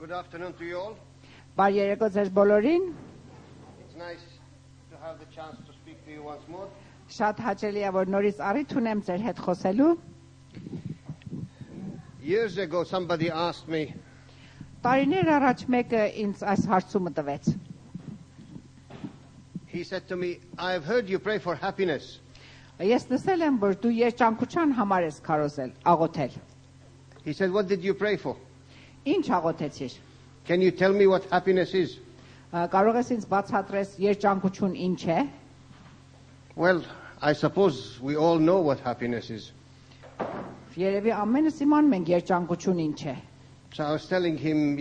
Good afternoon to you all. Բարի երեկո ձեզ բոլորին։ It's nice to have the chance to speak to you once more. Շատ հաճելի է որ նորից առիթ ունեմ ձեր հետ խոսելու։ Years ago somebody asked me, Տարիներ առաջ մեկը ինձ այս հարցումը տվեց։ he said to me, I have heard you pray for happiness. Ես լսել եմ որ դու երջանկության համար ես քարոզել, աղոթել։ He said, what did you pray for? Ինչ աղոթեցիր։ Can you tell me what happiness is? Կարող ես ինձ բացատրես երջանկություն ինչ է։ Well, I suppose we all know what happiness is. Երևի ամենս իմանում ենք երջանկություն ինչ է։ So I was telling him,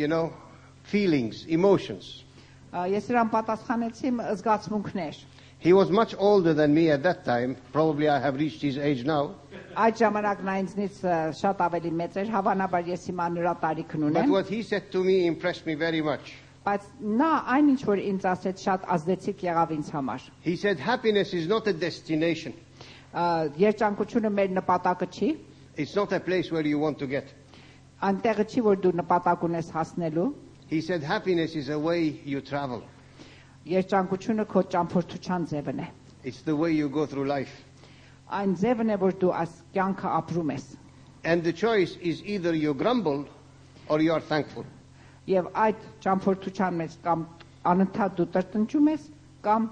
feelings, emotions. Ես իրան պատասխանեցի զգացմունքներ։ He was much older than me at that time. Probably I have reached his age now. Այդ ժամանակ նա ինձնից շատ ավելի մեծ էր, հավանաբար ես հիմա նրա տարիքն But ունեմ։ what he said to me impressed me very much. Բայց նա այն ինչ որ ինձ ասեց շատ ազդեցիկ եղավ ինձ համար։ He said, happiness is not a destination. Երջանկությունը մեր նպատակը չի, It's not a place where you want to get. այնտեղը չի որ դու նպատակ ունես հասնելու։ He said, happiness is a way you travel. Երջանկությունը քո ճամփորդության ձևն է։ It's the way you go through life. Այն ձևն է որ դու այս կյանքը ապրում ես։ And the choice is either you grumble or you are thankful. Եվ այդ ճամփորդության մեջ կամ անընդհատ դու տրտնջում ես կամ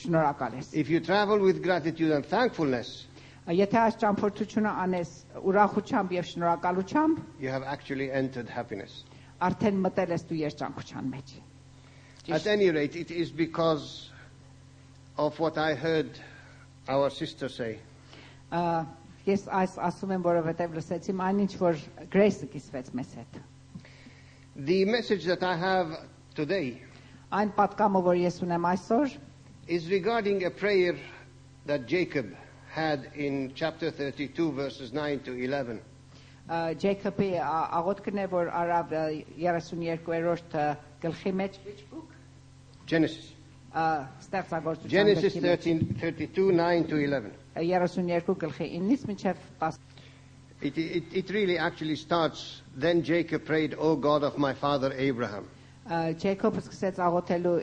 շնորհակալ ես։ If you travel with gratitude and thankfulness, Եթե այս ճամփորդությունը անես ուրախությամբ եւ շնորհակալությամբ, you have actually entered happiness. արդեն մտել ես դու երջանկության մեջ։ At any rate, it is because of what I heard our sister say. Ես այս ասում եմ, որովհետև լսեցի այն ինչ որ Grace-ը կիսվեց մեզ հետ։ The message that I have today Այն պատկամը, որ ես ունեմ այսօր, is regarding a prayer that Jacob had in chapter 32, verses 9 to 11. Jacob-ի աղոթքն է, որ արավ 32-րդ գլխի մեջ, which book? Genesis. Ստեղծագործության Genesis գլխի մեջ 32, 9 to 11. 32 գլխի 9-ից մինչև 10։ It really actually starts, then Jacob prayed, O God of my father Abraham. Jacob-ը սկսեց աղոթելու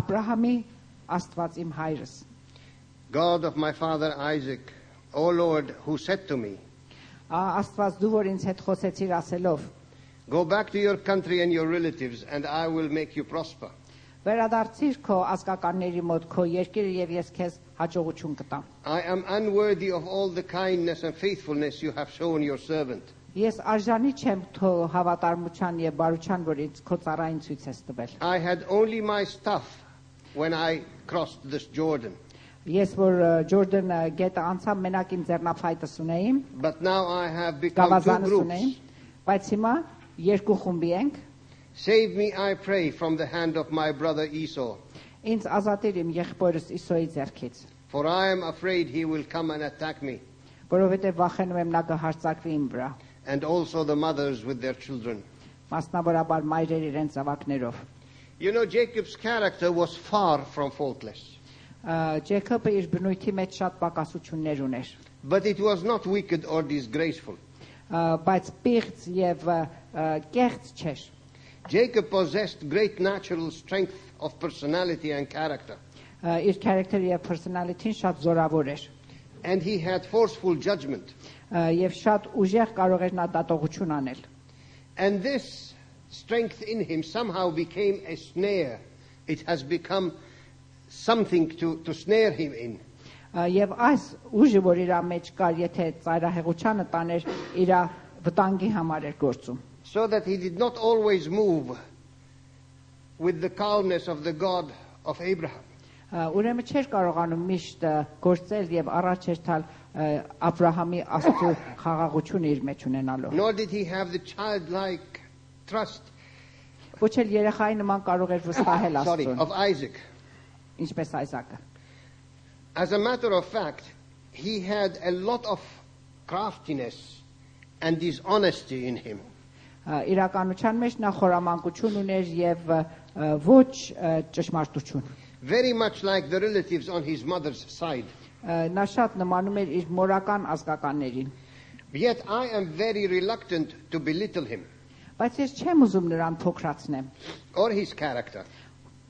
Աբրահամի Աստված իմ հայրս։ God of my father Isaac, O Lord, who said to me, Աստված դու որ ինձ հետ խոսեցիր ասելով, go back to your country and your relatives, and I will make you prosper. վերադարձիր քո ազգականների մոտ քո երկիրը եւ ես քեզ հաջողություն կտամ։ I am unworthy of all the kindness and faithfulness you have shown your servant. Ես արժանի չեմ քո հավատարմության եւ բարության, որ ինձ քո ծառային ցույց ես տվել։ I had only my stuff when I crossed this Jordan. Ես որ Ջորդան գետը անցա մենակ իմ ձեռնափայտս ունեի, But now I have become two գավազանս ունեի, groups. բայց հիմա երկու խումբի ենք։ Save me, I pray, from the hand of my brother Esau. Ինձ ազատիր իմ եղբորս Իսոյի ձեռքից, For I am afraid he will come and attack me, որովհետեւ վախենում եմ նա կհարձակվի իմ վրա, and also the mothers with their children. մասնավորաբար մայրեր իրենց զավակներով։ Jacob's character was far from faultless. Ջեյքոբը իր բնույթի մեջ շատ պակասություններ ուներ, But it was not wicked or disgraceful. բայց պիղծ եւ կեղծ չէր։ Jacob possessed great natural strength of personality and character. Իր character-ը եւ personality-ն շատ զորավոր էր։ And he had forceful judgment. Եվ շատ ուժեղ կարող էր նա դատողություն անել։ And this strength in him somehow became a snare. It has become something to snare him in. Եվ այս ուժը, որ իր մեջ կար, եթե ծայրահեղությանը տաներ, իր վտանգի համար էր գործում։ So that he did not always move with the calmness of the God of Abraham. Ուրեմն չէր կարողանում միշտ գործել եւ առաջ էր տալ Աբրահամի Աստծո խաղաղությունը իր մեջ ունենալով։ Nor did he have the childlike trust Ոչ էլ երեխայի նման կարող էր վստահել Աստծուն, of Isaac. ինչպես Այսակը։ As a matter of fact, he had a lot of craftiness and dishonesty in him. Իրականության մեջ նա խորամանկություն ուներ եւ ոչ ճշմարտություն։ Very much like the relatives on his mother's side. Նա շատ նմանում էր իր մորական ազգականներին։ Yet I am very reluctant to belittle him. Բայց ես չեմ ուզում նրան փոքրացնեմ or his character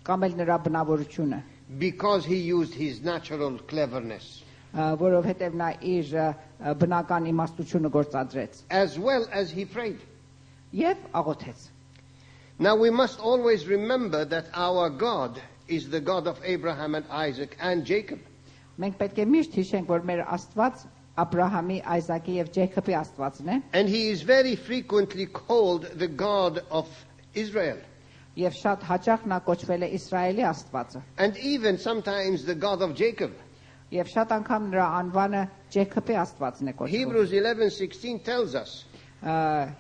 կամ էլ նրա բնավորությունը, because he used his natural cleverness, որովհետև նա իր բնական իմաստությունը գործադրեց as well as he prayed. եւ աղոթեց։ Now we must always remember that our God is the God of Abraham and Isaac and Jacob. Մենք պետք է միշտ հիշենք, որ մեր Աստված Աբրահամի, Այզակի եւ Ջեյքոբի Աստվածն է, And he is very frequently called the God of Israel. եւ շատ հաճախ նա կոչվել է Իսրայելի Աստվածը, And even sometimes the God of Jacob. եւ շատ անգամ նրա անվանը Ջեյքոբի Աստվածն է կոչվում։ Hebrews 11:16 tells us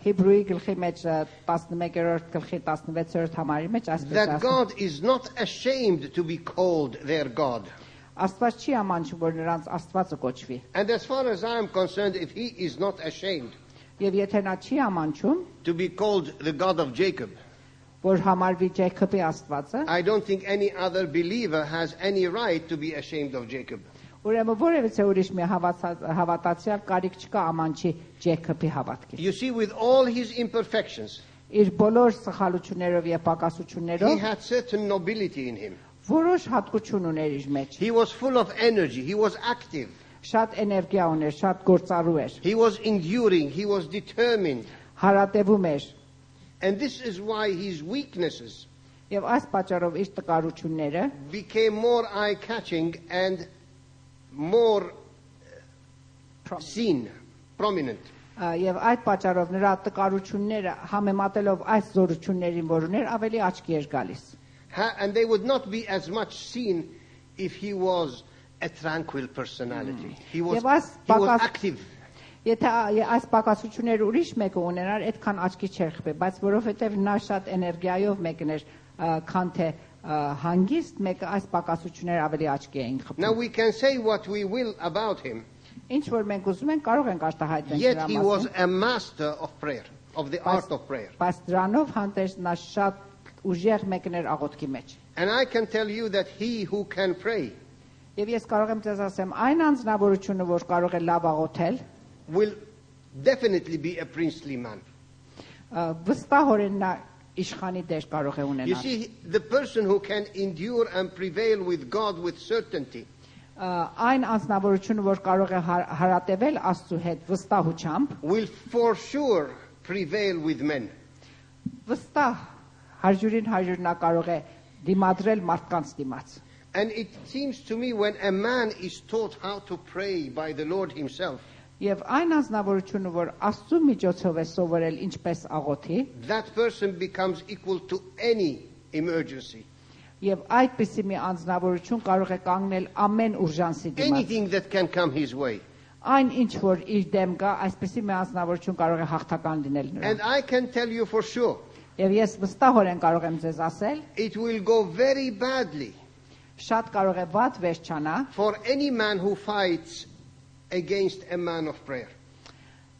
Հիբրուի գլխի մեջ 11-րդ գլխի 16-րդ համարի մեջ այսպես that ասում։ God is not ashamed to be called their God. Աստված չի ամանչում, որ նրանց Աստվածը կոչվի։ And as far as I am concerned, if he is not ashamed Եվ եթե նա չի ամանչում, to be called the God of Jacob, որ համարվի Ջեյքոբի Աստվածը, I don't think any other believer has any right to be ashamed of Jacob. ուրեմն որևէ ուրիշ մի հավատացյալ կարիք չկա ամանչի Ջեյքոբի հավատքի։ You see, with all his imperfections, Իր բոլոր սխալություններով եւ he պակասություններով had certain nobility in him. որոշ հատկություն ուներ իր մեջ։ He was full of energy. He was active. Շատ էներգիա ուներ, շատ գործառու էր, He was enduring. He was determined. հարատևում էր And this is why his weaknesses եւ այս պատճառով իր տկարությունները became more eye-catching and more seen, prominent. եւ այդ պատճառով նրա տկարությունները համեմատելով այս զորություններին, որ ուներ, ավելի աչքի էր գալիս։ And they would not be as much seen if he was a tranquil personality. He was active. Եթե այս պակասությունները ուրիշ մեկը ունենար, այդքան աչքի չէր խփի, բայց որովհետև նա շատ էներգիայով մեկն էր, քան թե հանգիստ մեկը, այս պակասությունները ավելի աչքի էին խփում։ Now we can say what we will about him, Ինչ որ մենք ուզում ենք, կարող ենք արտահայտել yet նրա he was մասին, a master of prayer, of the art of prayer. բայց դրանով հանդերձ նա շատ ուժեղ մեկն էր աղոթքի մեջ։ And I can tell you that he who can pray Եվ ես կարող եմ ձեզ ասեմ, այն անձնավորությունը, որ կարող է լավ աղոթել, will definitely be a princely man. վստահորեն նա իշխանի դեր կարող է You ունենալ։ see, the person who can endure and prevail with God with certainty Այն անձնավորությունը, որ կարող է հարատևել Աստծու հետ վստահությամբ, will for sure prevail with men. վստահ 100-ին 100 նա կարող է դիմադրել մարդկանց դիմաց։ And it seems to me when a man is taught how to pray by the Lord himself, Եվ այն անձնավորությունը, որ Աստծու միջոցով է սովորել ինչպես աղոթի, that person becomes equal to any emergency. եւ այդպիսի մի անձնավորություն կարող է կանգնել ամեն ուժանսի դիմաց։ Anything that can come his way. Այն ինչ որ իր դեմ կա, այսպիսի մի անձնավորություն կարող է հաղթական լինել And նրան։ I can tell you for sure, Եվ ես վստահորեն կարող եմ ձեզ ասել, it will go very badly շատ կարող է վատ վերջանա for any man who fights against a man of prayer.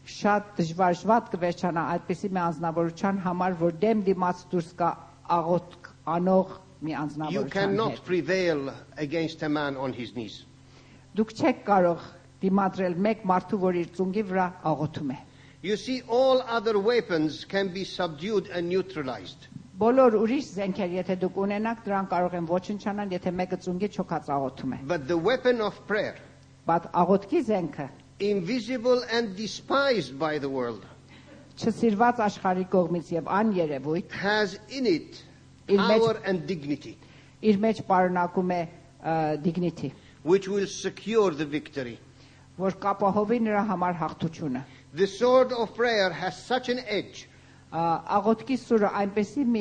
շատ դժվար կվերջանա այդպիսի մի անձնավորության համար, որ դեմ դիմաց դուրս կա աղոթք անող մի You անձնավորության cannot հետ։ prevail against a man on his knees. Դուք չեք կարող դիմադրել մեկ մարդու, որ իր ծունգի վրա աղոթում է։ You see, all other weapons can be subdued and neutralized. Բոլոր ուրիշ զենքեր, եթե դուք ունենաք, դրան կարող են ոչնչանալ, եթե մեկը ծունգի չոքած աղոթում է։ But the weapon of prayer, Բայց աղոթքի զենքը invisible and despised by the world, չսիրված աշխարհի կողմից եւ աներևույթ has in it իր մեջ power and dignity, իր մեջ պարունակում է dignity, which will secure the victory. որ կապահովի նրա համար հաղթությունը։ The sword of prayer has such an edge Աղոթքի սուրը այնպեսի մի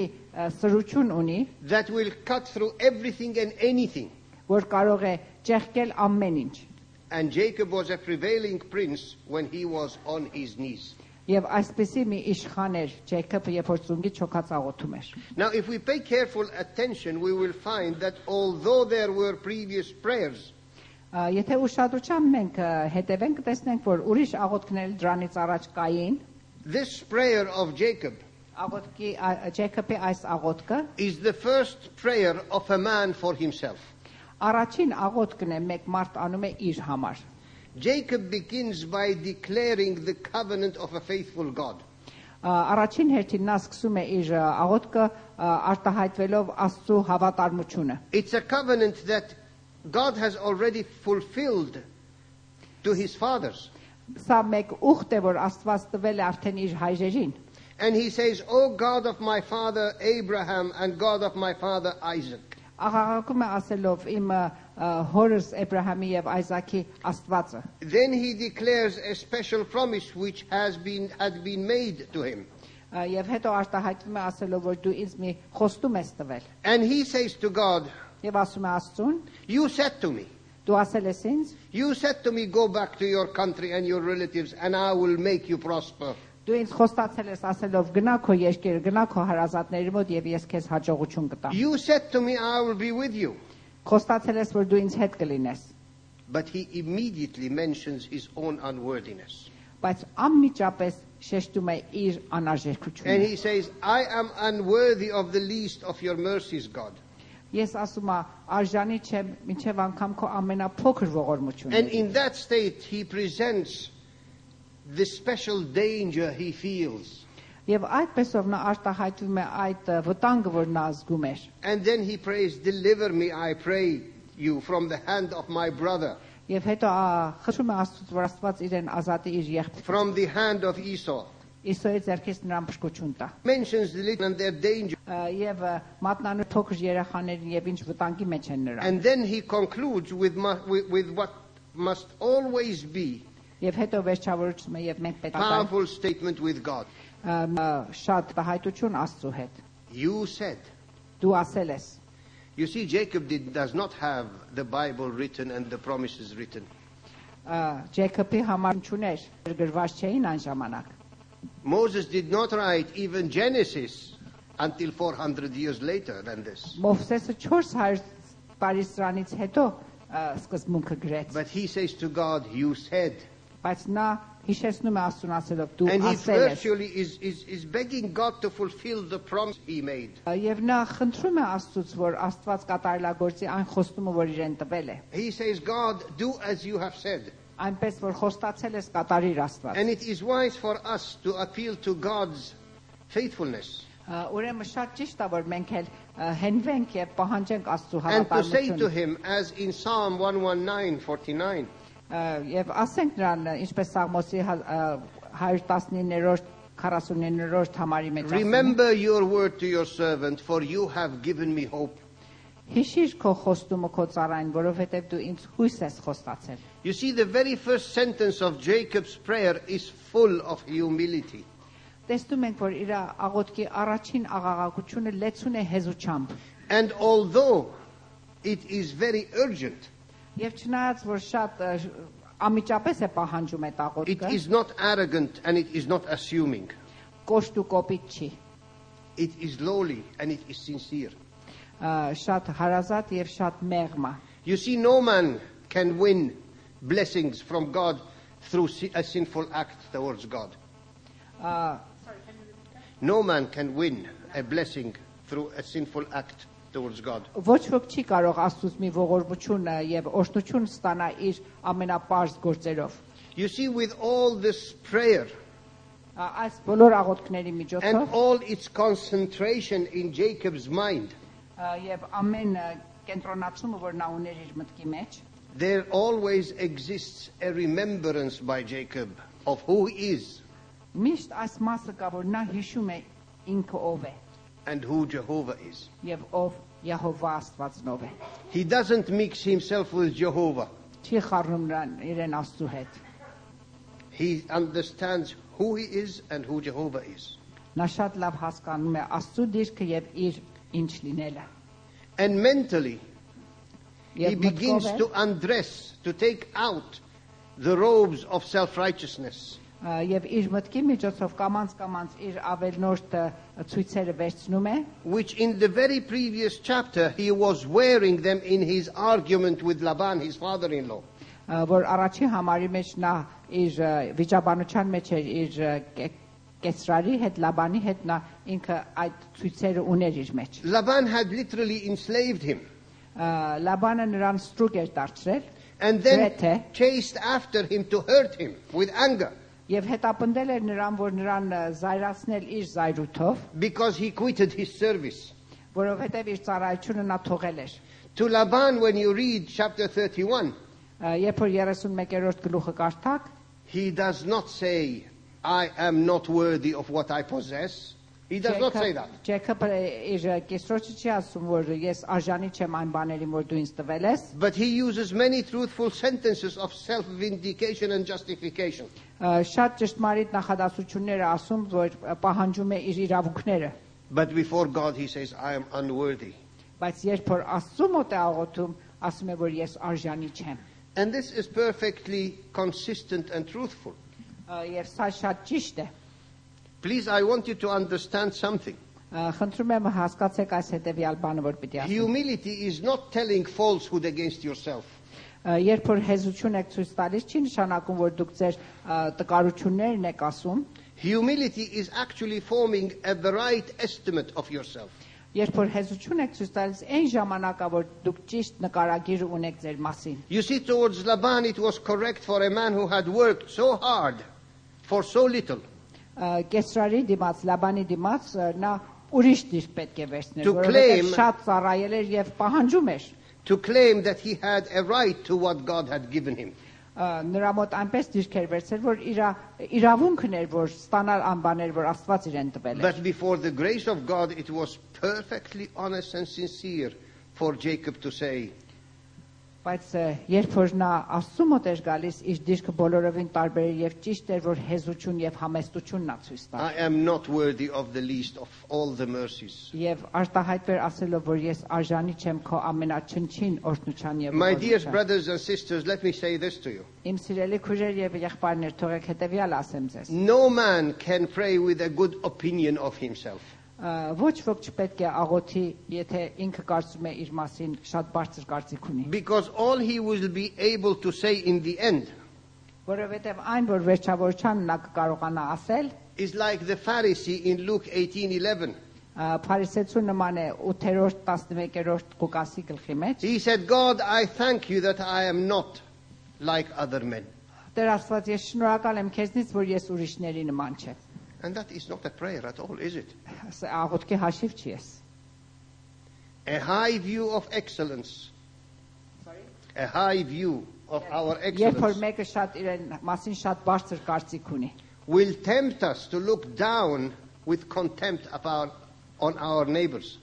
սրություն ունի, that will cut through everything and anything. որ կարող է ճեղքել ամեն ինչ։ And Jacob was a prevailing prince when he was on his knees. Եվ այսպեսի մի իշխան էր Ջեյքոբը, երբ որ ծունգի չոքած աղոթում էր։ Now, if we pay careful attention, we will find that although there were previous prayers, Եթե ուշադրությամբ մենք հետևենք, տեսնենք, որ ուրիշ աղոթքներ դրանից առաջ կային, this prayer of Jacob աղոթքի Ջեյքոբի այս աղոթքը is the first prayer of a man for himself. առաջին աղոթքն է մեկ մարդ անում է իր համար։ Jacob begins by declaring the covenant of a faithful God. Առաջին հերթին նա սկսում է իր աղոթքը արտահայտվելով Աստծո հավատարմությունը։ It's a covenant that God has already fulfilled to his fathers. Սա մեկ ուխտ է, որ Աստված տվել է արդեն իր հայրերին։ And he says, "O God of my father Abraham and God of my father Isaac." Աղաղակում է ասելով իմ հորս Էբրահամի եւ Այսակի Աստվածը։ Then he declares a special promise which had been made to him. Եվ հետո արտահայտվում է ասելով, որ դու ինձ մի խոստում ես տվել։ And he says to God, Եվ ասում է Աստծուն, "You said to me, դու ասել ես ինձ, you said to me, go back to your country and your relatives and I will make you prosper." դու ինձ խոստացել ես ասելով գնա քո երկիր, գնա քո հարազատների մոտ եւ ես քեզ հաջողություն կտամ։ You said to me, I will be with you. Խոստացել ես, որ դու ինձ հետ կլինես։ But he immediately mentions his own unworthiness. Բայց անմիջապես շեշտում է իր And անարժեքությունը։ he says, I am unworthy of the least of your mercies, God. Ես ասում եմ, արժանի չեմ մինչև անգամ քո ամենափոքր And ողորմությունը։ in that state, he presents the special danger he feels. Եվ այդպեսով նա արտահայտվում է այդ վտանգը, որ նա զգում էր։ And then he prays, deliver me, I pray you, from the hand of my brother, Եվ հետո խնդրում է Աստծուց, որ Աստված իրեն ազատի իր եղբայրից։ from the hand of Esau. Իսոյի ձեռքից նրան փրկություն տա։ Mentions the little and their danger. Եվ մատնանու փոքր երեխաներին եւ ինչ վտանգի մեջ են նրանք։ And then he concludes with what must always be Եվ հետո վերջավորում է եւ մենք պետք է powerful statement with God. շատ հայտություն Աստծո հետ։ You said. Դու ասել ես։ You see, Jacob does not have the Bible written and the promises written. Ջեյքոբի համար չուներ, գրված չէին այն ժամանակ։ Moses did not write even Genesis until 400 years later than this. Մովսեսը 400 տարի սրանից հետո սկզբունքը գրեց։ But he says to God, you said. Բայց նա հիշեցնում է Աստծուն ասելով դու And he ասել ես։ virtually is begging God to fulfill the promise he made. Եվ նա խնդրում է Աստծուց, որ Աստված կատարելագործի այն խոստումը, որ իրեն տվել է։ He says, God, do as you have said. Այնպես որ խոստացել ես կատարիր Աստված։ And it is wise for us to appeal to God's faithfulness. Ուրեմն շատ ճիշտ է, որ մենք էլ հենվենք եւ պահանջենք Աստծո And to say to հավատարմությունը։ him, as in Psalm 119:49, Եվ ասենք նրան, ինչպես Սաղմոսի 119-րդ 49-րդ համարի մեջ ասում է. remember your word to your servant, for you have given me hope. Հիշիր քո խոստումը քո ծառային, որովհետև դու ինձ հույս ես խոստացել։ You see, the very first sentence of Jacob's prayer is full of humility. Տեսնում ենք, որ իր աղոթքի առաջին աղաղակությունը լեցուն է հեզուչամբ։ And although it is very urgent, Եվ չնայած որ շատ ամիջապես է պահանջում այդ it աղոթքը, is not arrogant and it is not assuming. կոշտ ու կոպիտ չի։ It is lowly and it is sincere. Շատ հարազատ եւ շատ մեղմ է։ You see, no man can win blessings from God through a sinful act towards God. No man can win a blessing through a sinful act towards God. Ոչ ոք չի կարող Աստծուց մի ողորմություն եւ օրհնություն ստանա իր ամենապարզ գործերով։ You see, with all this prayer Այս բոլոր աղոթքների and միջոցով all its concentration in Jacob's mind, եւ ամեն կենտրոնացումը, որ նա ուներ իր մտքի մեջ, there always exists a remembrance by Jacob of who he is միշտ այս մասը կա, որ նա հիշում է ինքը ով է and who Jehovah is. եւ ով Եհովա Աստվածնով է։ He doesn't mix himself with Jehovah. Չի խառնում նրան իրեն Աստծո հետ։ He understands who he is and who Jehovah is. Նա շատ լավ հասկանում է Աստծո դիրքը եւ իր ինչ լինելը։ And mentally, he Եվ begins մտքով to undress, to take out the robes of self-righteousness. եւ իր մտքի միջոցով կամած իր ավելնորդ ցույցերը վերցնում է, Which in the very previous chapter he was wearing them in his argument with Laban, his father-in-law. որ առաջի համարի մեջ նա իր վիճաբանության մեջ էր իր կեսրարի հետ Լաբանի հետ նա ինքը այդ ցույցերը ուներ իր մեջ։ Laban had literally enslaved him Լաբանը նրան ստրուկ էր դարձրել, and then Grete. chased after him to hurt him with anger. Եվ հետապնդել էր նրան, որ նրան զայրացնել իր զայրույթով, because he quitted his service. որովհետև իր ծառայությունը նա թողել էր։ To Laban, when you read chapter 31, Երբ որ 31-րդ գլուխը կարդաք, he does not say, I am not worthy of what I possess. He does not say that. Ջեյքոբը իր կեսրոջը չի ասում, որ ես արժանի չեմ այն բաներին, որ դու ինձ տվել ես, But he uses many truthful sentences of self-vindication and justification. Շատ ճշտմարիտ նախադասություններ է ասում, որ պահանջում է իր իրավունքները, But before God he says, I am unworthy. բայց երբ որ Աստծու մոտ է աղոթում, ասում է, որ ես արժանի չեմ։ And this is perfectly consistent and truthful. Եվ սա շատ ճիշտ է։ Please, I want you to understand something. Խնդրում եմ հասկացեք այս հետևյալ բանը, որ պիտի ասեմ։ Humility is not telling falsehood against yourself. Երբ որ հեզություն եք ցույց տալիս, չի նշանակում, որ դուք ձեր տկարություններն եք ասում, Humility is actually forming a right estimate of yourself. երբ որ հեզություն եք ցույց տալիս, այն ժամանակա, որ դուք ճիշտ նկարագիր ունեք ձեր մասին։ You see, towards Laban it was correct for a man who had worked so hard for so little Կեսրարի դիմաց, Լաբանի դիմաց նա ուրիշ դիրք պետք է վերցներ, To որովհետև claim- շատ ծառայել էր եւ պահանջում էր։ to claim that he had a right to what God had given him. Նրա մոտ այնպես դիրք էր վերցրել, որ իրավունքն էր, որ ստանալ անբաներ, որ Աստված իրեն տվել էր։ But before the grace of God, it was perfectly honest and sincere for Jacob to say, Բայց երբ որ նա Աստծու մոտ էր գալիս, իր դիրքը բոլորովին տարբեր էր եւ ճիշտ էր, որ հեզություն եւ համեստություն նա ցույց տա։ I am not worthy of the least of all the mercies. Եվ արտահայտվեր ասելով, որ ես արժանի չեմ քո ամենաչնչին օրհնության եւ My dear ողորմության։ brothers and sisters, let me say this to you. Իմ սիրելի քույրեր եւ եղբայրներ, թողեք հետեւյալ ասեմ ձեզ։ No man can pray with a good opinion of himself. Ոչ ոք չպետք է աղոթի, եթե ինքը կարծում է իր մասին շատ բարձր կարծիք ունի, Because all he will be able to say in the end որովհետև այն, որ վերջավորչան նա կկարողանա ասել, is like the Pharisee in Luke 18:11. Փարիսեցու նման է 8-րդ 11-րդ Ղուկասի գլխի մեջ։ He said, God, I thank you that I am not like other men. Տեր Աստված, ես շնորհակալ եմ քեզնից, որ ես ուրիշների նման չեմ։ And that is not a prayer at all, is it? Աղոթքի հաշիվ չի ես։ A high view of excellence. A high view of our Երբ որ excellence մեկը շատ իրեն մասին շատ բարձր կարծիք ունի, will tempt us to look down with contempt on our neighbors.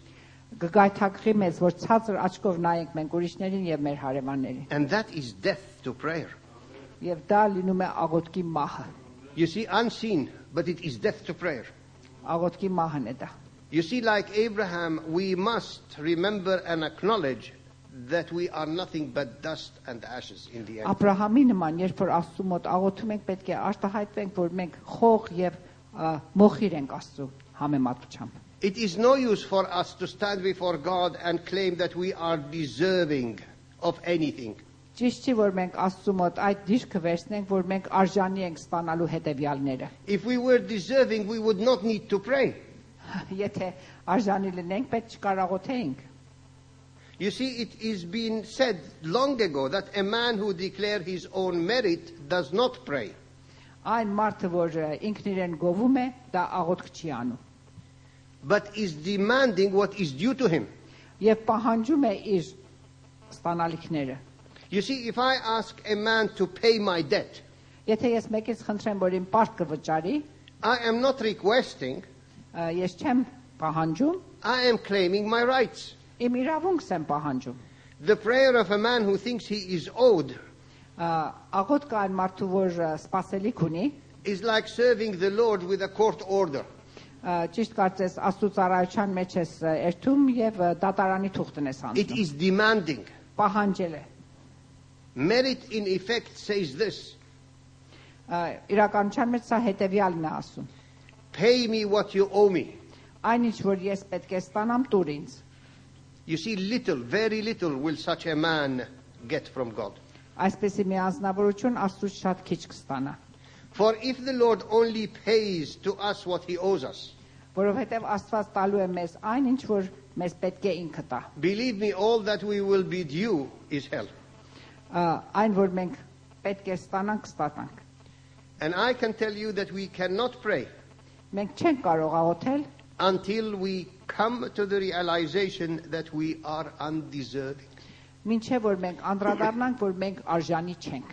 կգայթակղի մեզ, որ ցածր աչքով նայենք մենք ուրիշներին եւ մեր հարևաններին։ And that is death to prayer. Եվ դա լինում է աղոթքի մահը։ You see, unseen, but it is death to prayer. Աղոթքի մահն է դա։ You see, like Abraham, we must remember and acknowledge that we are nothing but dust and ashes in the end. Աբրահամի նման, երբ որ Աստծու մոտ աղոթում ենք, պետք է արտահայտվենք, որ մենք խող եւ մոխիր ենք Աստծու համեմատությամբ։ It is no use for us to stand before God and claim that we are deserving of anything. Ճիշտ չի, որ մենք Աստծու մոտ այդ դիրքը վերցնենք, որ մենք արժանի ենք ստանալու հետևյալները։ If we were deserving, we would not need to pray. Եթե արժանի լինենք, պետք չկար աղոթեինք։ You see, it is been said long ago that a man who declares his own merit does not pray. Այն մարդը, որ ինքն իրեն գովում է, դա աղոթք չի անում։ But is demanding what is due to him. Եվ պահանջում է իր ստանալիքները։ You see, if I ask a man to pay my debt, Եթե ես մեկից խնդրեմ, որ իմ պարտքը վճարի, I am not requesting, ես չեմ պահանջում, I am claiming my rights. իմ իրավունքս եմ պահանջում։ The prayer of a man who thinks he is owed Աղոթքը այն մարդու, որ սպասելիք ունի, is like serving the Lord with a court order. ճիշտ կարծես Աստծո ծառայության մեջ ես երթում եւ դատարանի թուղթն ես It հանդիպում։ is demanding. Պահանջել է։ Merit in effect says this, Իրականության մեջ սա հետեւյալն է ասում. pay me what you owe me. Այնինչ որ ես պետք է ստանամ տուր ինձ։ You see, little, very little will such a man get from God. Այսպեսի մի անձնավորություն Աստծուց շատ քիչ կստանա։ For if the Lord only pays to us what he owes us, Որովհետև Աստված տալու է մեզ այն, ինչ որ մեզ պետք է ինքը տա։ believe me, all that we will be due is hell. Այն որ մենք պետք է ստանանք, կստանանք։ And I can tell you that we cannot pray Մենք չենք կարող աղոթել, until we come to the realization that we are undeserving. մինչև որ մենք անդրադառնանք, որ մենք արժանի չենք։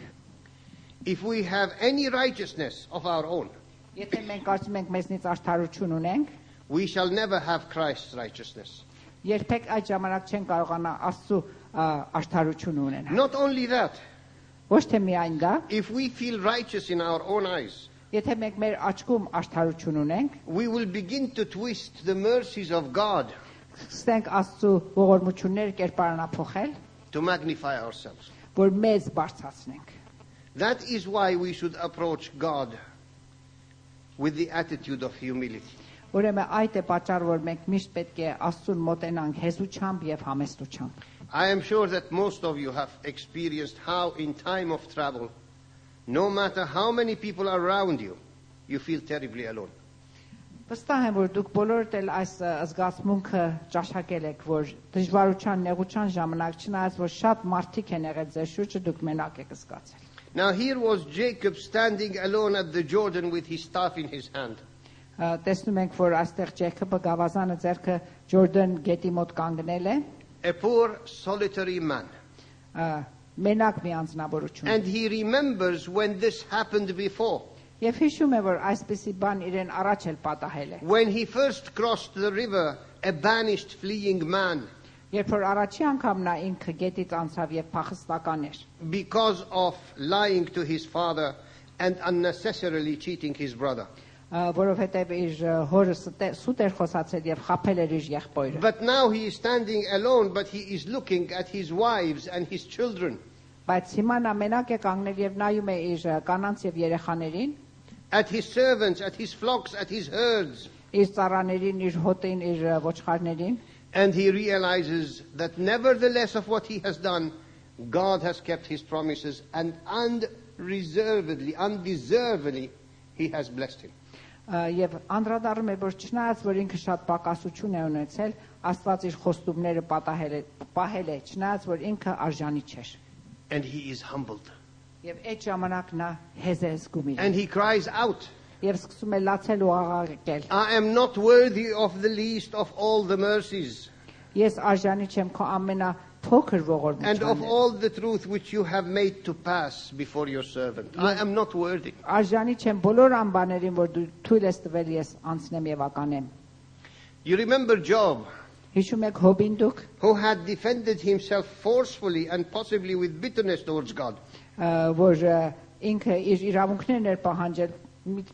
If we have any righteousness of our own, Եթե մենք կարծում ենք մեզնից արդարություն ունենք, we shall never have Christ's righteousness. երբեք այդ ժամանակ չեն կարողանա Աստծո արդարություն ունենալ։ Not only that, Ոչ թե միայն դա, if we feel righteous in our own eyes, եթե մենք մեր աչքում արդարություն ունենք, we will begin to twist the mercies of God սկսենք Աստծո ողորմությունները կերպարանափոխել, to magnify ourselves. որ մեզ բարձրացնենք։ That is why we should approach God with the attitude of humility. Ուրեմն այդ է պատճառը, որ մենք միշտ պետք է Աստծուն մոտենանք հեզությամբ եւ համեստությամբ։ I am sure that most of you have experienced how in time of travel, no matter how many people are around you, you feel terribly alone. Վստահ եմ, որ դուք բոլորդ էլ այս զգացմունքը ճաշակել եք, որ դժվարության, նեղության ժամանակ չնայած որ շատ մարդիկ են եղել ձեր շուրջը, դուք մենակ եք զգացել։ Now here was Jacob standing alone at the Jordan with his staff in his hand. Տեսնում ենք, որ այստեղ Ջեյքոբը գավազանը ձեռքը Ջորդան գետի մոտ կանգնել է, A poor solitary man. մենակ մի անձնավորություն։ And he remembers when this happened before. Եվ հիշում է, որ այսպիսի բան իրեն առաջ էլ պատահել է։ When he first crossed the river, a banished fleeing man, Երբ որ առաջի անգամ նա ինքը գետից անցավ եւ փախստական էր, because of lying to his father and unnecessarily cheating his brother. որովհետեւ իր հորը սուտ էր խոսացել եւ խաբել էր իր եղբայրը։ But now he is standing alone, but he is looking at his wives and his children, Բայց հիմա նա մենակ է կանգնել եւ նայում է իր կանանց եւ երեխաներին, at his servants, at his flocks, at his herds, իր ծառաներին, իր հոտին, իր ոչխարներին, and he realizes that nevertheless of what he has done, God has kept his promises, and undeservedly he has blessed him. Եվ անդրադառնում է, որ չնայած որ ինքը շատ պակասություն է ունեցել, Աստված իր խոստումները պահել է, չնայած որ ինքը արժանի չէր։ And he is humbled. Եվ այդ ժամանակ նա հեզ է զգում իրեն։ And he cries out, Եվ սկսում է լացել ու աղաղակել։ I am not worthy of the least of all the mercies Ես արժանի չեմ քո ամենափոքր and of ողորմությանից։ all the truth which you have made to pass before your servant. I am not worthy. Արժանի չեմ բոլոր անբաներին, որ դու թույլ ես տվել ես անցնեմ եւ ականեմ։ You remember Job, Հիշում եք Հոբին դուք, who had defended himself forcefully and possibly with bitterness towards God. որ ինքը իր իրավունքներն էր պահանջել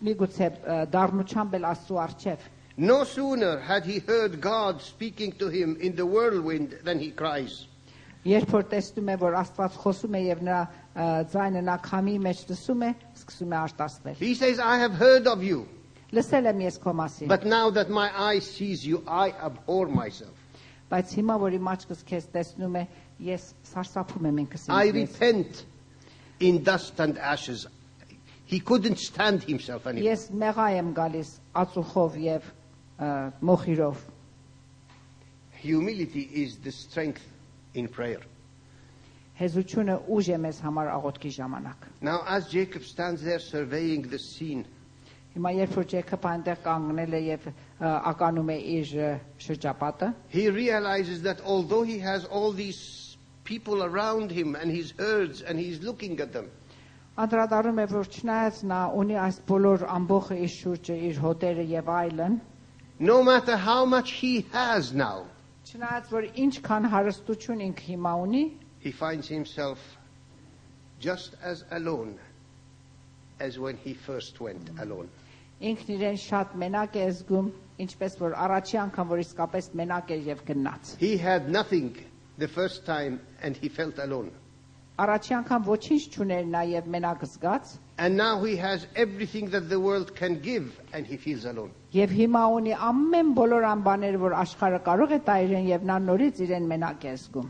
միգուցե դառնությամբ էլ Աստծո առջև։ No sooner had he heard God speaking to him in the whirlwind than he cries. Երբ որ տեսնում է, որ Աստված խոսում է եւ նրա ձայնը նա քամի մեջ լսում է, սկսում է արտասվել։ He says, I have heard of you, Լսել եմ ես քո մասին, but now that my eye sees you, I abhor myself. բայց հիմա որ իմ աչքս քեզ տեսնում է, ես սարսափում եմ ինքս I ինձ։ repent in dust and ashes. He couldn't stand himself anymore. Ես մեղա եմ գալիս ածուխով եւ մոխիրով։ Humility is the strength in prayer. Հեզությունը ուժ է մեզ համար աղոթքի ժամանակ։ Now, as Jacob stands there surveying the scene, Հիմա երբ որ Ջեյքոբը այնտեղ կանգնել է եւ ականում է իր շրջապատը, he realizes that although he has all these people around him and his herds and he's looking at them, անդրադառնում է, որ չնայած նա ունի այս բոլոր ամբողջ իր շուրջը, իր հոտերը եւ այլն, no matter how much he has now, չնայած որ ինչքան հարստություն ինքը հիմա ունի, he finds himself just as alone as when he first went alone. ինքն իրեն շատ մենակ է զգում, ինչպես որ առաջի անգամ որ իսկապես մենակ էր եւ գնաց։ He had nothing the first time and he felt alone. Առաջի անգամ ոչինչ չուներ նա եւ մենակ զգաց, And now he has everything that the world can give and he feels alone. եւ հիմա ունի ամեն բոլոր անբաները, որ աշխարհը կարող է տա իրեն եւ նա նորից իրեն մենակ է զգում։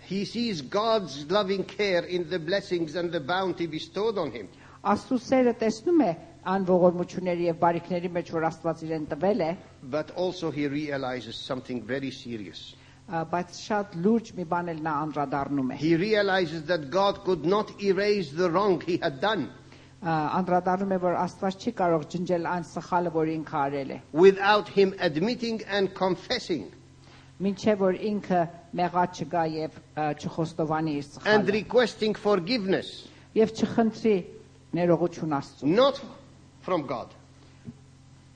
He sees God's loving care in the blessings and the bounty bestowed on him. Աստծո սերը տեսնում է ան ողորմությունների եւ բարիքների մեջ, որ Աստված իրեն տվել է, But also he realizes something very serious. բայց շատ լուրջ մի բան էլ նա անդրադառնում է։ He realizes that God could not erase the wrong he had done. անդրադառնում է որ Աստված չի կարող ջնջել այն սխալը որ ինքը արել է without him admitting and confessing մինչև որ ինքը մեղած չգա եւ չխոստովանի իր and սխալը requesting forgiveness, եւ չխնդրի ներողություն Աստծո not from God,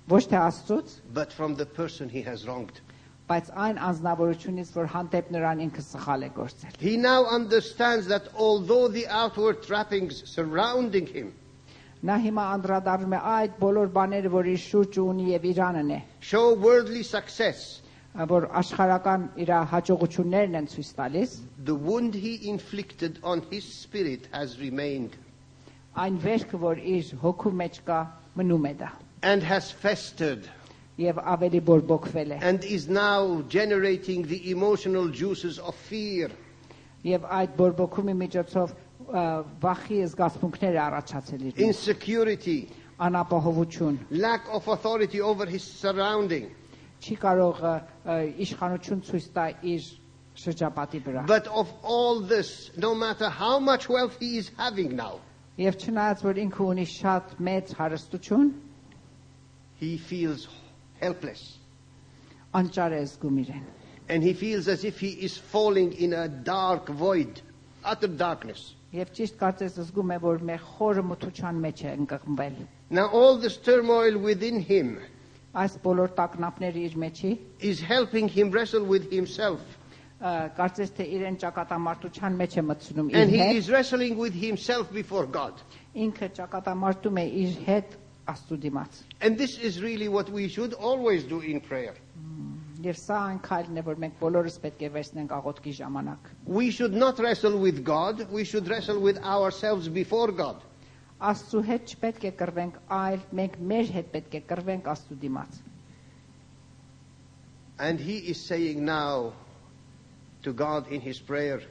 ոչ թե Աստծոց but from the person he has wronged. բայց այն անձնավորությունից որ հանդեպ նրան ինքը սխալ է գործել He now understands that although the outward trappings surrounding him նա հիմա անդրադառնում է այդ բոլոր բաները որ իր շուրջ ունի եւ իրանն է show worldly success, որ աշխարհական իր հաջողություններն են ցույց տալիս the wound he inflicted on his spirit has remained այն վերքը որ իր հոգու մեջ կա մնում է դա and has festered եւ ավելի բորբոքվել է and is now generating the emotional juices of fear, եւ այդ բորբոքումի միջոցով վախի զգացմունքներ է առաջացել իր մեջ insecurity, անապահովություն lack of authority over his surrounding. չի կարող իշխանություն ցույց տա իր շրջապատի վրա But of all this, no matter how much wealth he is having now, եւ չնայած որ ինքը ունի շատ մեծ հարստություն he feels helpless. անճար է զգում իրեն And he feels as if he is falling in a dark void, utter darkness. եւ ճիշտ կարծես զգում է որ մեր խորը մթության մեջ է ընկղմվել Now all this turmoil within him այս բոլոր տագնապները իր մեջի is helping him wrestle with himself. կարծես թե իրեն ճակատամարտության մեջ է մտցնում And իր he հետ is wrestling with himself before God. ինքը ճակատամարտում է իր հետ Աստծո դիմաց And this is really what we should always do in prayer. եւ սա այն քայլն է որ մենք բոլորս պետք է վերցնենք աղոթքի ժամանակ We should not wrestle with God, we should wrestle with ourselves before God. Աստծո հետ չպետք է կռվենք այլ մենք մեր հետ պետք է կռվենք Աստծո դիմաց And he is saying now to God in his prayer,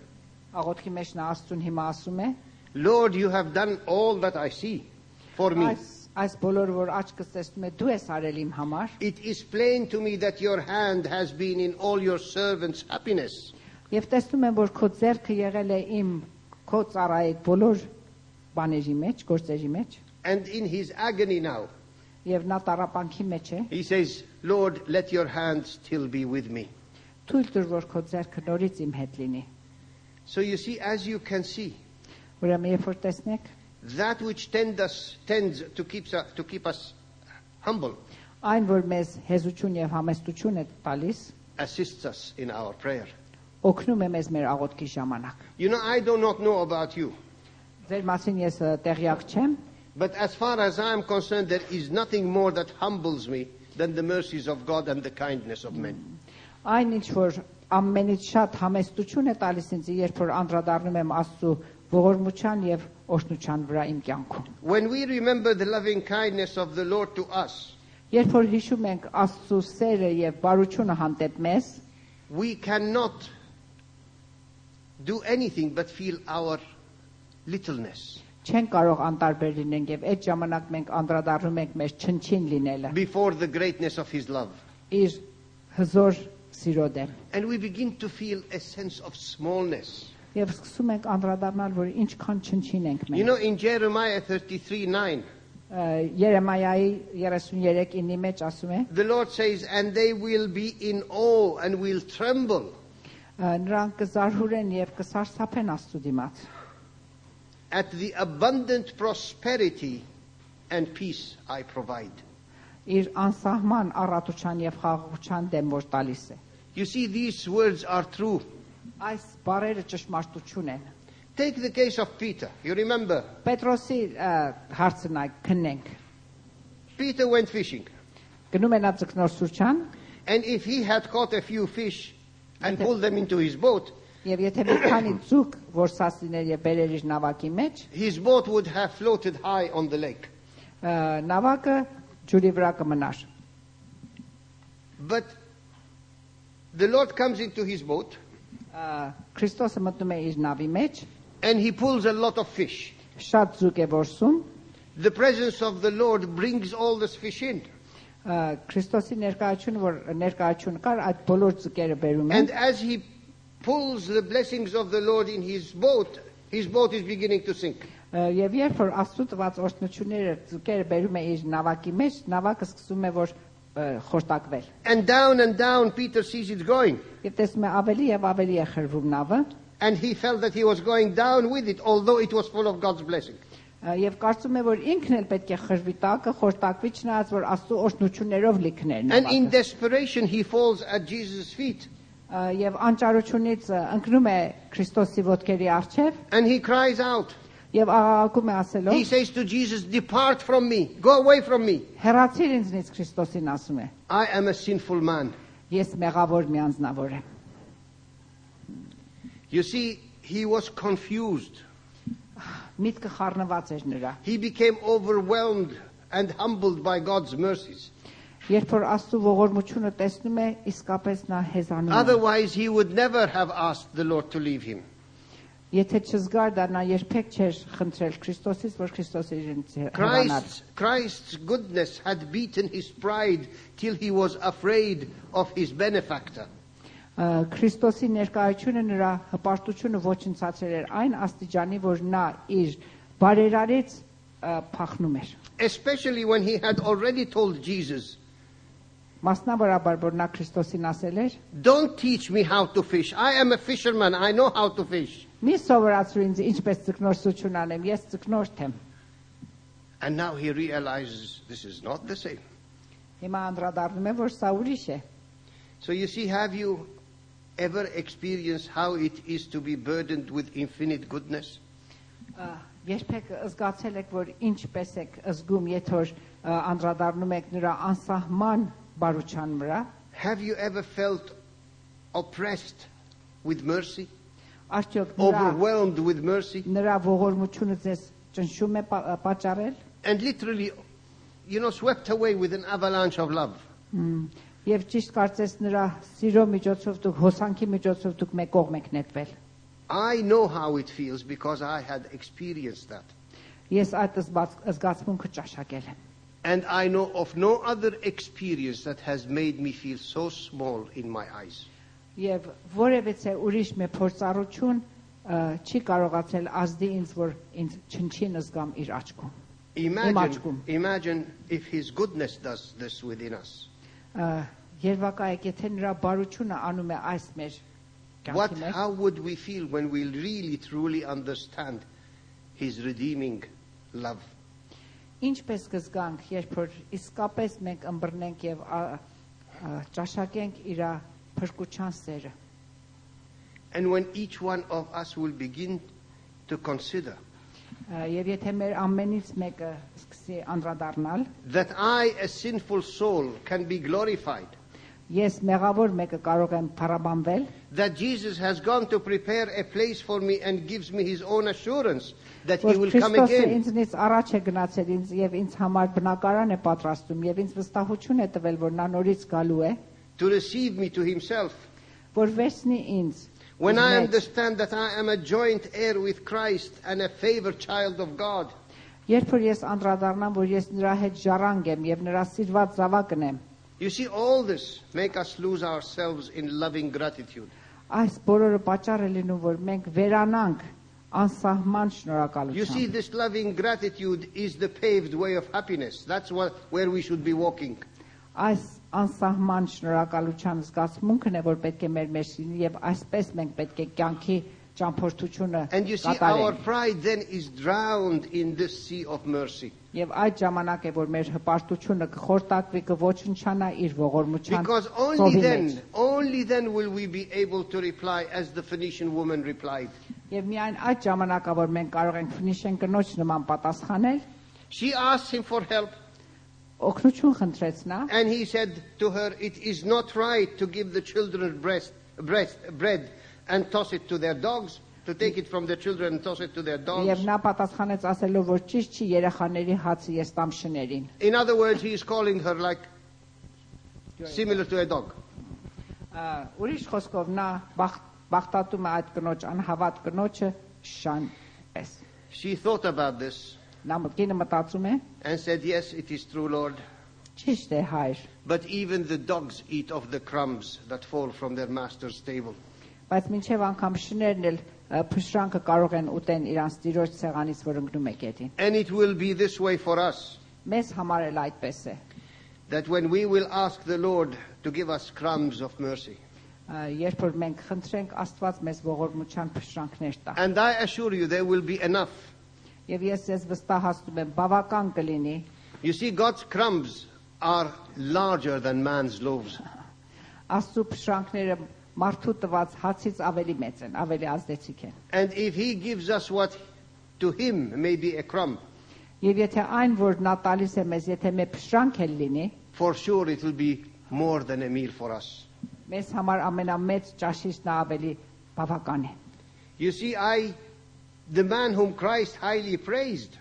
աղոթքի մեջ նա Աստծուն հիմա ասում է Lord, you have done all that I see for me. այս բոլորը որ աչքս տեսնում է դու ես արել իմ համար It is plain to me that your hand has been in all your servants' happiness. եւ տեսնում եմ որ քո ձեռքը եղել է իմ քո ծառայի բոլոր բաների մեջ գործերի մեջ And in his agony now, եւ նա տառապանքի մեջ է he says, Lord, let your hand still be with me. թույլ տուր որ քո ձեռքը նորից իմ հետ լինի So you see, as you can see, ուրեմն երբ որ տեսնեք that which tends to keep us humble այն որ մեզ հեզություն եւ համեստություն է տալիս assists us in our prayer. օգնում է մեզ մեր աղոթքի ժամանակ You know, I do not know about you, ձեր մասին ես տեղյակ չեմ but as far as I am concerned, there is nothing more that humbles me than the mercies of God and the kindness of men. այն ինչ որ ամենից շատ համեստություն է տալիս ինձ երբ որ անդրադառնում եմ Աստծո ողորմության եւ օրհնության վրա իմ կյանքում When we remember the loving kindness of the Lord to us, երբ որ հիշում ենք Աստծո սերը եւ բարությունը հանդեպ մեզ we cannot do anything but feel our littleness չեն կարող անտարբեր լինենք եւ այդ ժամանակ մենք անդրադառնում ենք մեր չնչին լինելը before the greatness of his love. իր հզոր սիրո դեմ And we begin to feel a sense of smallness. եւ սկսում ենք անդրադառնալ որ ինչքան չնչին ենք You մենք know, in Jeremiah 33:9, Երեմիայի 33:9-ի մեջ ասում է the Lord says, and they will be in awe and will tremble նրանք կզարհուրեն եւ կսարսափեն Աստծո դիմաց at the abundant prosperity and peace I provide. իր անսահման առատության եւ խաղաղության դեմ որ տալիս է You see, these words are true. այս բառերը ճշմարտություն են Take the case of Peter. You remember, Պետրոսի հարցն այ քննենք Peter went fishing. գնում է նա ձկնորսության And if he had caught a few fish and pulled them into his boat, եւ եթե մի քանի ձուկ որսասիներ եւ բերեր իր նավակի մեջ his boat would have floated high on the lake. նավակը ջուրի վրա կմնար But the Lord comes into his boat Քրիստոսը մտնում է իր նավի մեջ and he pulls a lot of fish. շատ ձուկ է որսում The presence of the Lord brings all this fish in. Քրիստոսի ներկայությունը որ ներկայություն կար այդ բոլոր ձկերը բերում And են as he pulls the blessings of the Lord in his boat is beginning to sink. Եվ երբ որ Աստծո տված օրհնությունները ձուկերը բերում է իր նավակի մեջ, նավակը սկսում է որ խորտակվել։ And down Peter sees it going. Եվ տեսնում է ավելի եւ ավելի է խրվում նավը, And he felt that he was going down with it, although it was full of God's blessing. եւ կարծում է որ ինքն էլ պետք է խրվի տակը, խորտակվի չնայած որ Աստծո օրհնություններով լիքներ And in նավակը։ desperation he falls at Jesus' feet. Եվ անճարությունից ընկնում է Քրիստոսի ոտքերի առջև And he cries out. եւ աղաղակում է He ասելով. says to Jesus, "Depart from me. Go away from me. Հեռացիր ինձնից Քրիստոսին ասում է։ I am a sinful man." Ես մեղավոր մի անձնավոր եմ։ You see, he was confused. Միտքը խառնված էր նրա։ He became overwhelmed and humbled by God's mercies. Երբ որ Աստծո ողորմությունը տեսնում է, իսկապես նա հեզանում է։ Otherwise, he would never have asked the Lord to leave him. Եթե չզգար դա նա երբեք չէր խնդրել Քրիստոսից, որ Քրիստոսը իրենից հեռանար։ Christ's goodness had beaten his pride till he was afraid of his benefactor. Քրիստոսի ներկայությունը նրա հպարտությունը ոչնցացրել էր այն աստիճանի, որ նա իր բարերարից փախնում էր։ Especially when he had already told Jesus, Մասնավորաբար որ նա Քրիստոսին ասել էր. "Don't teach me how to fish. I am a fisherman. I know how to fish." Մի սովորացրու ինձ ինչպես ձկնորսություն անեմ, ես ձկնորդ եմ։ And now he realizes this is not the same. Հիմա անդրադառնում է, որ սա ուրիշ է։ So you see, have you ever experienced how it is to be burdened with infinite goodness? Երբեք զգացել եք, որ ինչպես եք զգում, եթե որ անդրադառնում եք նրա անսահման բարության վրա։ Have you ever felt oppressed with mercy? Արդյոք Overwhelmed with mercy? նրա ողորմությունը ձեզ ճնշում է պատճառել։ And literally, swept away with an avalanche of love. Եվ ճիշտ կարծես նրա սիրո միջոցով դուք հոսանքի միջոցով դուք մեկ կողմ եք նետվել։ I know how it feels because I had experienced that. Ես այդ զգացմունքը ճաշակել եմ։ And I know of no other experience that has made me feel so small in my eyes. Եվ որևէ ուրիշ մի փորձառություն չի կարողացել ազդի ինձ, որ ինձ չնչին զգամ իր աչքում։ Imagine if his goodness does this within us. Երևակայեք, եթե նրա բարությունը անում է այս մեր կյանքի մեջ, How would we feel when we really truly understand his redeeming love? Ինչպես կզգանք, երբ որ իսկապես մենք ըմբռնենք եւ ճաշակենք իր փրկության սերը։ And when each one of us will begin to consider Եվ եթե մեր ամենից մեկը սկսի անդրադառնալ, that I, a sinful soul, can be glorified, ես մեղավոր մեկը կարող եմ փառաբանվել, that Jesus has gone to prepare a place for me and gives me his own assurance that he որ will come Քրիստոսը again. ինձնից առաջ է գնացել ինձ եւ ինձ համար բնակարան է պատրաստում եւ ինձ վստահություն է տվել, որ նա նորից գալու է, To receive me to himself. որ վերցնի ինձ։ When I understand that I am a joint heir with Christ and a favored child of God, Երբ որ ես անդրադառնամ, որ ես նրա հետ ժառանգ եմ եւ նրա սիրված զավակն եմ, you see, all this make us lose ourselves in loving gratitude. այս բոլորը պատճառ է լինում, որ մենք վերանանք անսահման You see, շնորհակալությամբ։ this loving gratitude is the paved way of happiness. That's where we should be walking. Այս անսահման շնորհակալության զգացմունքն է, որ պետք է մեր մեջ լինի եւ այսպես մենք պետք է կյանքի ճամփորդությունը And you see, our կատարենք։ pride then is drowned in this sea of mercy. Եվ այդ ժամանակ է, որ մեր հպարտությունը կխորտակվի, կոչնչանա իր ողորմության Because ծովի մեջ։ only then will we be able to reply as the Phoenician woman replied. Եվ միայն այդ ժամանակա, որ մենք կարող ենք Ֆնիշեն կնոջ նման պատասխանել, She asked him for help, օգնություն խնդրեց նա, and he said to her, "It is not right to give the children bread and toss it to their dogs, to take it from the children and toss it to their եւ dogs." նա պատասխանեց ասելով, որ ճիշտ չի երեխաների հացը ես տամ շներին։ In other words, he is calling her like similar to a dog. Ուրիշ խոսքով նա բախտատում է այդ կնոջ անհավատ կնոջը շան պես։ She thought about this Նա մտքինը մտածում է, and said, "Yes, it is true, Lord. ճիշտ է հայր, But even the dogs eat of the crumbs that fall from their master's table." բայց մինչև անգամ շներն էլ փշրանքը կարող են ուտեն իրանց տիրոջ ցեղանից, որ ընկնում է գետին։ And it will be this way for us, Մեզ համար էլ այդպես է։ that when we will ask the Lord to give us crumbs of mercy, Երբ որ մենք խնդրենք Աստված մեզ ողորմության փշրանքներ տա։ and I assure you there will be enough. Եվ ես ձեզ վստահացնում եմ, բավական կլինի։ You see, God's crumbs are larger than man's loaves. Աստծո փշրանքները մարդու տված հացից ավելի մեծ են, ավելի ազդեցիկ են։ And if He gives us what to Him may be a crumb, Եվ եթե այն, որ նա տալիս է մեզ, եթե մեր փշրանք էլ լինի, for sure it will be more than a meal for us. մեզ համար ամենամեծ ճաշիչն ավելի բավական է։ You see, the man whom Christ highly praised,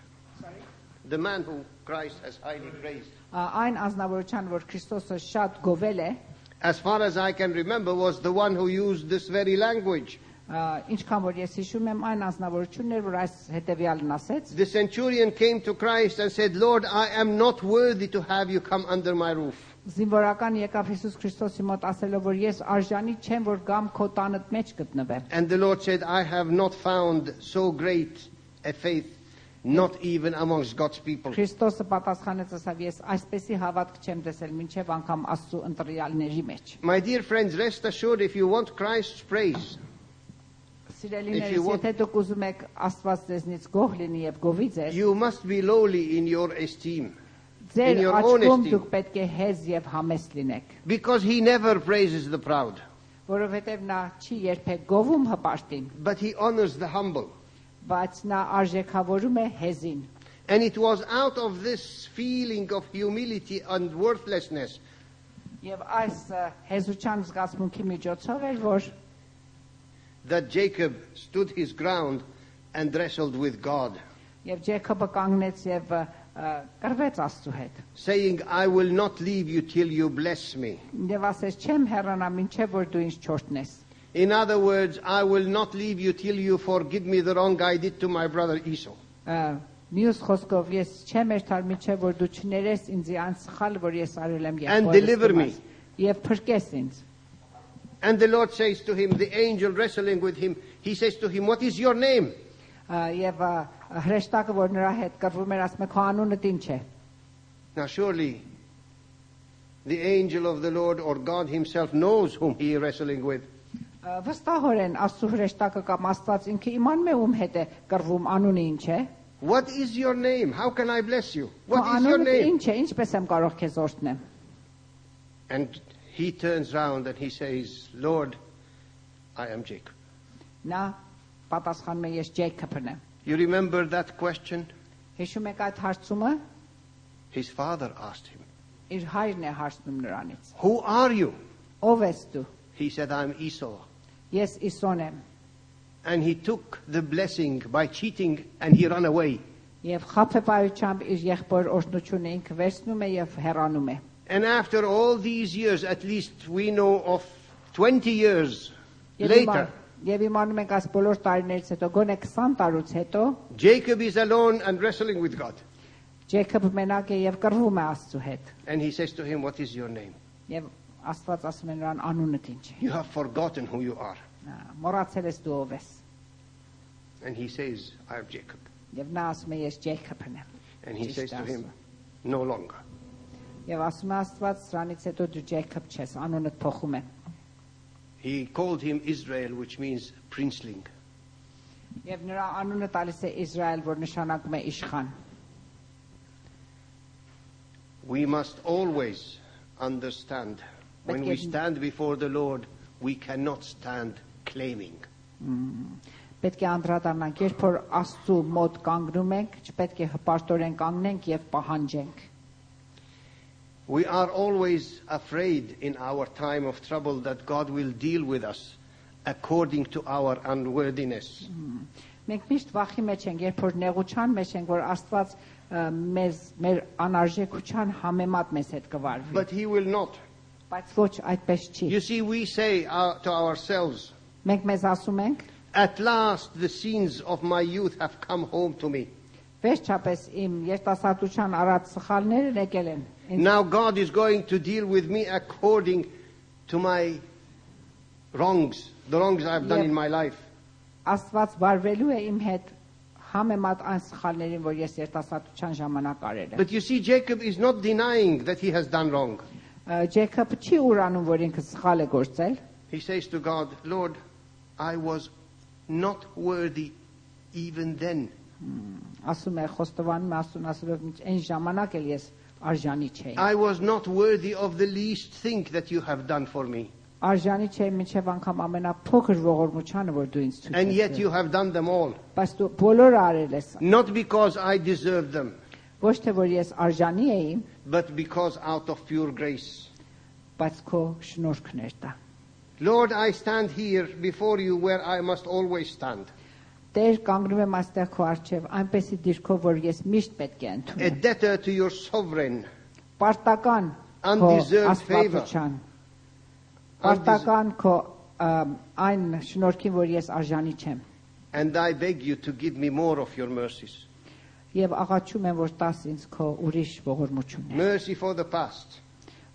the man whom Christ has highly praised, Այն ազնվորության, որ Քրիստոսը շատ գովել է, as far as I can remember, was the one who used this very language. ինչքան որ ես հիշում եմ, այն ազնվորությունն էր, որ այս հետևյալն ասեց. The centurion came to Christ and said, Lord, I am not worthy to have you come under my roof. Զինվորական եկավ Հիսուս Քրիստոսի մոտ ասելով, որ ես արժանի չեմ, որ գամ քո տանդ մեջ գտնվեմ։ And the Lord said, I have not found so great a faith, not even amongst God's people. Քրիստոսը պատասխանեց ասավ, ես այսպեսի հավատք չեմ տեսել մինչև անգամ Աստծո ընտրյալների մեջ։ My dear friends, rest assured, if you want Christ's praise, Սիրելիներս, եթե դուք ուզում եք Աստված ձեզնից գոհ լինի եւ գովի ձեզ, you must be lowly in your esteem. ձեր your աչքում honesty. դուք պետք է հեզ եւ համեստ լինեք, Because He never praises the proud, որովհետեւ նա չի երբեք գովում հպարտին, but He honors the humble. բայց նա արժեքավորում է հեզին։ And it was out of this feeling of humility and worthlessness Եվ այս հեզության զգացմունքի միջոցով էր, որ that Jacob stood his ground and wrestled with God, եւ Ջեյքոբը կանգնեց եւ կռվեց Աստծո հետ։ saying, I will not leave you till you bless me. Եվ ասեց, չեմ հեռանա մինչև որ դու ինձ չորտնես։ In other words, I will not leave you till you forgive me the wrong I did to my brother Esau. Մյուս խոսքով ես չեմ երթար մինչև որ դու չներես ինձ այն սխալը, որ ես արել եմ And deliver me. Եվ փրկես ինձ։ And the Lord says to him, the angel wrestling with him, he says to him, what is your name? Եվ հրեշտակը, որ նրա հետ կռվում էր, ասում է, քո անունդ ինչ է։ Now surely the angel of the Lord or God himself knows whom he is wrestling with. Վստահորեն Աստծո հրեշտակը կամ Աստված ինքը իմանում է ում հետ է կռվում, անունը ինչ է։ What is your name? How can I bless you? Քո What is your անունդ name? ինչ է, ինչպես եմ կարող քեզ օրհնեմ։ And he turns round and he says, Lord, I am Jacob. Նա պատասխանում է, ես Ջեյքոբն եմ։ You remember that question? Հիշում եք այդ հարցումը։ His father asked him, Իր հայրն է հարցնում նրանից։ who are you? Ով ես դու։ He said, I'm Esau. Ես Իսոն եմ։ And he took the blessing by cheating and he ran away. Եվ խաբեբայությամբ իր եղբոր օրհնությունը ինքը վերցնում է եւ հեռանում է։ And after all these years, at least we know of 20 years Եվ later, իմանում ենք այս բոլոր տարիներից հետո, գոնե 20 տարուց հետո, Jacob is alone and wrestling with God. Ջեյքոբը մենակ է եւ կռվում է Աստծո հետ։ And he says to him, what is your name? Եվ Աստված ասում է նրան անունդ ինչ է։ You have forgotten who you are. Մոռացել ես դու ով ես։ And he says, I am Jacob. Եվ նա ասում է ես Ջեյքոբն եմ։ And he Ճիշտ says to ասում him, է։ no longer. Եվ ասում է Աստված, սրանից հետո դու Ջեյքոբ չես, անունդ փոխում է։ He called him Israel, which means princeling. Եվ նրա անունը տալիս է Իսրայել, որ նշանակում է իշխան։ We must always understand when we stand before the Lord, we cannot stand claiming. Պետք է անդրադառնանք, երբ որ Աստծո մոտ կանգնում ենք, չպետք է հպարտորեն կանգնենք եւ պահանջենք։ We are always afraid in our time of trouble that God will deal with us according to our unworthiness. Մենք միշտ վախի մեջ ենք, երբ որ նեղության մեջ ենք, որ Աստված մեզ մեր անարժեքության համեմատ մեզ հետ կվարվի։ But He will not. Բայց ոչ այդպես չի։ You see, we say to ourselves, Մենք մեզ ասում ենք, at last the sins of my youth have come home to me. վերջապես իմ երիտասարդության արած սխալներն եկել են։ Now God is going to deal with me according to my wrongs, the wrongs I've done in my life. Աստված վարվելու է իմ հետ համեմատ այն սխալներին, որ ես երիտասարդության ժամանակ արել եմ։ But you see, Jacob is not denying that he has done wrong. Ջեյքոբը չի ուրանում, որ ինքը սխալ է գործել։ He says to God, Lord, I was not worthy even then. Ասում է խոստովանում է ասում այն ժամանակ էլ ես արժանի չէի։ I was not worthy of the least thing that you have done for me. Արժանի չէի մինչև անգամ ամենափոքր ողորմությանը, որ դու ինձ ցույց And yet տվես։ you have done them all. Բայց դու բոլորը արել ես։ Not because I deserved them, Ոչ թե որ ես արժանի էի, but because out of pure grace. բայց քո շնորհքն էր դա։ Lord, I stand here before you where I must always stand. Տեր, կանգնում եմ այստեղ քո առջև, այնպեսի դիրքով, որ ես միշտ պետք է A ընդունեմ։ debtor to your sovereign. Պարտական քո Undeserved favor. աստվածության։ Պարտական քո այն շնորհքին, որ ես արժանի չեմ։ And I beg you to give me more of your mercies. Եվ աղաչում եմ, որ տաս ինձ քո ուրիշ ողորմություններ։ Mercy for the past,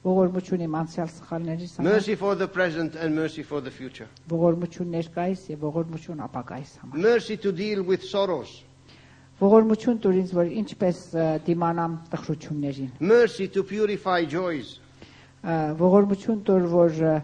Ողորմություն իմ անցյալ սխալներից համար, mercy for the present, and mercy for the future. ողորմություն ներկայիս եւ ողորմություն ապագայիս համար։ Mercy to deal with sorrows. Ողորմություն տուր ինձ, որ ինչպես դիմանամ տխրություններին։ Mercy to purify joys. Ողորմություն տուր, որ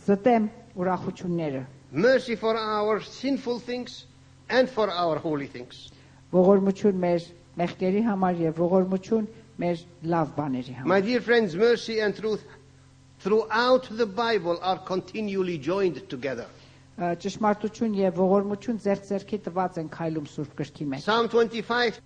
զտեմ ուրախությունները։ Mercy for our sinful things and for our holy things. Ողորմություն մեր մեղքերի համար եւ ողորմություն մեր լավ բաների համար։ My dear friends, mercy and truth throughout the Bible are continually joined together. Ճշմարտություն եւ ողորմություն ձեռք ձեռքի տված են քայլում Սուրբ գրքի մեջ։ Psalm 25